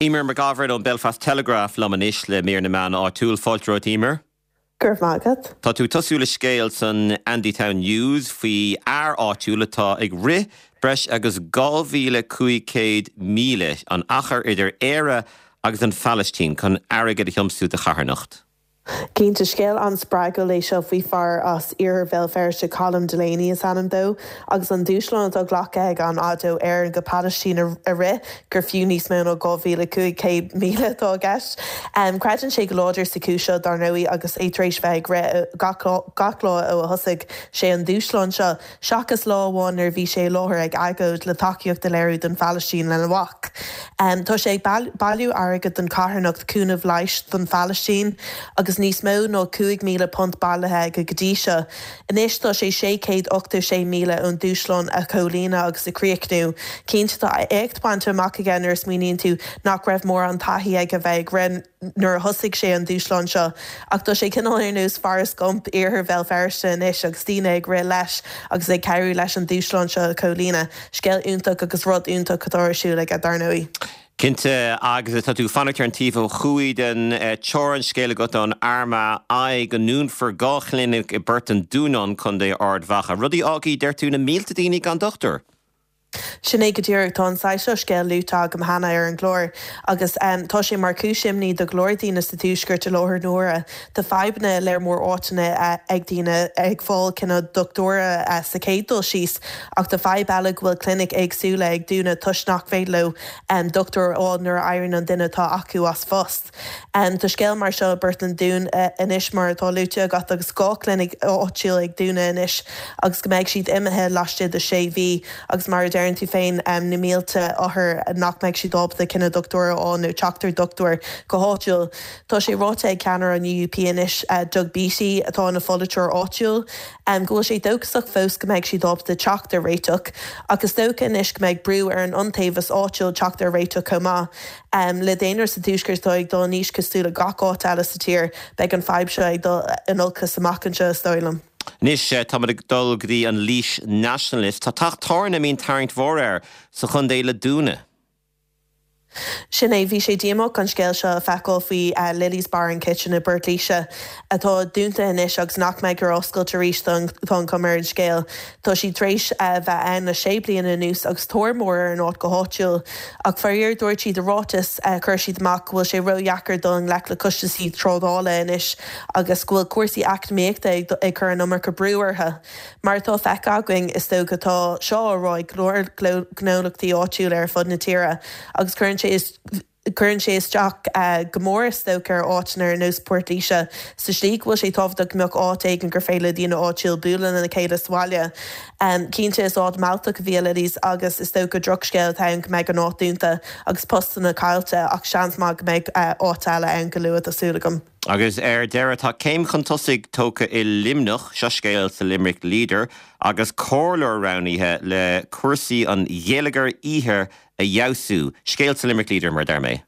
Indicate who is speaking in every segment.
Speaker 1: Eimear McGovern ón Belfast Telegraph liom anois le mír na meán áitiúil. Fáilte romhat Eimear.
Speaker 2: Go raibh maith agat.
Speaker 1: Tá tú ag tosú le scéal san Andytown News faoi fhear áitiúil atá ag rith breis agus 2,500 míle, an achar idir Éire agus an Phalaistín, chun airgead a thiomsú do charthanacht.
Speaker 2: Cinnte, scéal an-spreagúil é seo faoi fear as iarthar Bhéal Feirste, Colm Delaney is ainm dó, agus an dúshlán atá glactha aige an fhad ó Éirinn go Palaistín a rith, gur fiú níos mó ná 2,500 míle atá i gceist. Creideann sé go láidir sa chúis seo, dar ndóigh, agus é tar éis bheith ag rith gach lá ó a thosaigh sé an dúshlán seo. seachas lá amháin nuair a bhí sé i láthair ag agóid le tacaíocht a léiriú don Phalaistín lena mhac. Tá sé ag bailiú airgid don charthanacht Cúnamh Leighis don Phalaistín agus níos mó ná £5,000 bailithe aige go dtí seo. Anois tá sé 686 míle ón dúshlán a chomhlíonadh agus a chríochnú. Cinnte tá éacht bainte amach aige nuair a smaoiníonn tú nach raibh mórán taithí aige bheith ag rith. nuair a thosaigh sé an dúshlán seo. Ach tá sé cineál ar nós Forrest Gump iarthar Bhéal Feirste anois agus daoine ag rith leis agus ag cabhrú leis an dúshlán seo a chomhlíonadh. Scéal iontach agus rud iontach atá ar siúl aige, dar ndóigh.
Speaker 1: Cinnte, agus tá tú ag fanacht ar an taobh ó thuaidh den teorainn, scéal agat ón Armagh Eye go ndúnfar 2 chlinic i bPort an Dúnáin, Contae Ard Mhacha. Rud a fhágfaidh, deir tú, na mílte daoine gan dochtúir.
Speaker 2: Sin é go díreach. Tá an saghas seo scéil luaite agam cheana ar an gclár agus tá sé mar chúis imní do go leor daoine sa Tuaisceart i láthair na huaire. Tá fadhbanna i lear mór áiteanna ag daoine ag fáil cineál dochtúra sa chéad dul síos ach tá fadhb eile go bhfuil clinic éagsúla ag dúnadh toisc nach féidir leo dochtúir a fháil nuair a éiríonn an duine atá acu as phost. Tá scéal mar seo i bPort an Dúin anois mar atá luaite agat agus 2 chlinic áitiúil ag dúnadh anois agus go mbeidh siad imithe laistigh de 6 mhí agus mar a deireann tú féin na mílte othar nach mbeidh siad ábalta cineál dochtúir a fháil nó teacht ar dochtúir go háitiúil. Tá sé ráite ag ceannaire an UUP anois Doug Beattie atá ina pholaiteoir áitiúil go bhfuil sé dóchasach fós go mbeidh siad ábalta teacht ar réiteach ach is dócha anois go mbeidh brú ar an iontaobhas áitiúil teacht ar réiteach chomh maith. Le daonra sa Tuaisceart atá ag dul in aois cosúil le gach áit eile sa tír, beidh an fadhb seo ag dul in olcas amach anseo, is dóigh liom.
Speaker 1: Anois, táimid ag dul go dtí an Laois Nationalist. Tá teach tábhairne a mbíonn tarraingt mhór air sa chontae le dúnadh.
Speaker 2: Sin é, bhí sé díomách an scéal seo a feiceáil faoi Lily's Bar and Kitchen i bPort Laoise, atá dúnta anois agus nach mbeidh ar oscailt arís, tá an chuma ar an scéal. Tá siad tar éis bheith ann le sé bliana anuas agus tóir mór ar an áit go háitiúil. Ach faraor dúirt siad i ráiteas a chuir siad amach go bhfuil sé ródheacair dul i ngleic le costaisí trádála anois agus go bhfuil cúrsaí eacnamaíochta ag cur an iomarca brú orthu. Mar atá feicthe againn, is dócha, tá seo á rá ag go leor gnólachtaí áitiúla ar fud na tíre agus cuireann sé Cuireann sé isteach go mór is dócha ar áiteanna ar nós Port Laoise sa slí go bhfuil sé tábhachtach go mbeadh áit éigin gur féidir le daoine áitiúil bualadh lena chéile sa bhaile. Cinnte is áit mealltach a bhí i Lily's agus is dócha drochscéal atá ann go mbeidh an áit dúnta agus postanna caillte ach seans maith go mbeidh áit eile ann go luath tá súil agam.
Speaker 1: Agus ar deireadh tá céim chun tosaigh tógtha i Luimneach, seo scéal sa Limerick Leader, agus comhairleoir roghnaithe le cúrsaí an gheilleagair oíche a fheabhsú. Scéal sa Limerick Leader, mar a deir mé.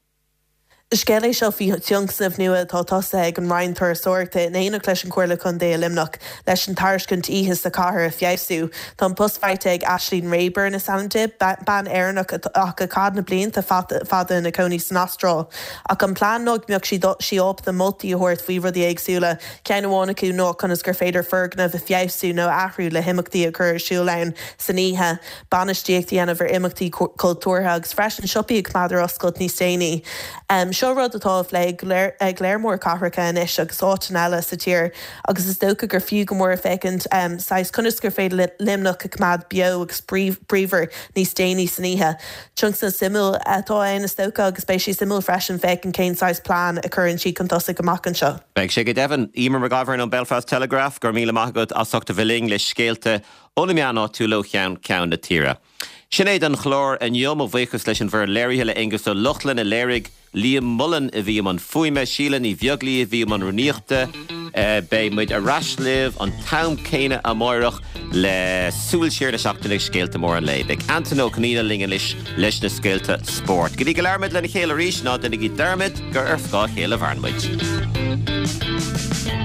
Speaker 2: Scéal é seo faoi thionscnamh nua atá tosaithe ag an Roinn Turasóireachta in éineacht leis an Chomhairle Contae i Luimneach leis an tairiscint oíche sa chathair a feabhsú. Tá an post faighte ag Aisling Rayburn is ainm di, bean Éireannach ach a chaith na blianta fada ina cónaí san Astráil. Ach an plean ná go mbeadh sí ábalta moltaí a thabhairt faoi rudaí éagsúla, ceann amháin acu ná conas gur féidir foirgneamh a feabhsú nó a athrú le himeachtaí a chur ar siúl ann san oíche. bainistíocht a dhéanamh ar imeachtaí cultúrtha agus freisin siopaí a choimeád ar oscailt níos déanaí. Seo rud atá á phlé ag lear mór cathracha anois agus áiteanna eile sa tír agus is dócha gur fiú go mór féachaint saghas conas gur féidir Luimneach a choimeád beo agus bríomhar níos déanaí san oíche. Tionscnamh suimiúil atá ann is dócha agus beidh sé suimiúil freisin féachaint cén saghas plean a chuireann siad chun tosaigh amach anseo.
Speaker 1: Beidh sé go deimhin. Eimear McGovern ón Belfast Telegraph, go raibh míle maith agat as ucht a bheith linn le scéalta Ó na meáin áitiúla ó cheann ceann na tíre. Sin é don chlár inniu. Mo bhuíochas leis an bhfoireann léirithe, le Aonghus Ó Lochlainn a léirigh, Liam Mullen a bhí i mbun fuaime, Síle Ní Bheaglaoí a bhí i mbun rúnaíochta. Beidh muid ar ais libh an t-am céanna amáireach le súil siar na seachtaine agus scéalta móra an lae. Beidh Antain Ó Conaola linn anois leis na scéalta spóirt. Go dtí go labhraímid lena chéile arís, ná déanaigí dearmad gur ar scáth a chéile a mhaireann muid.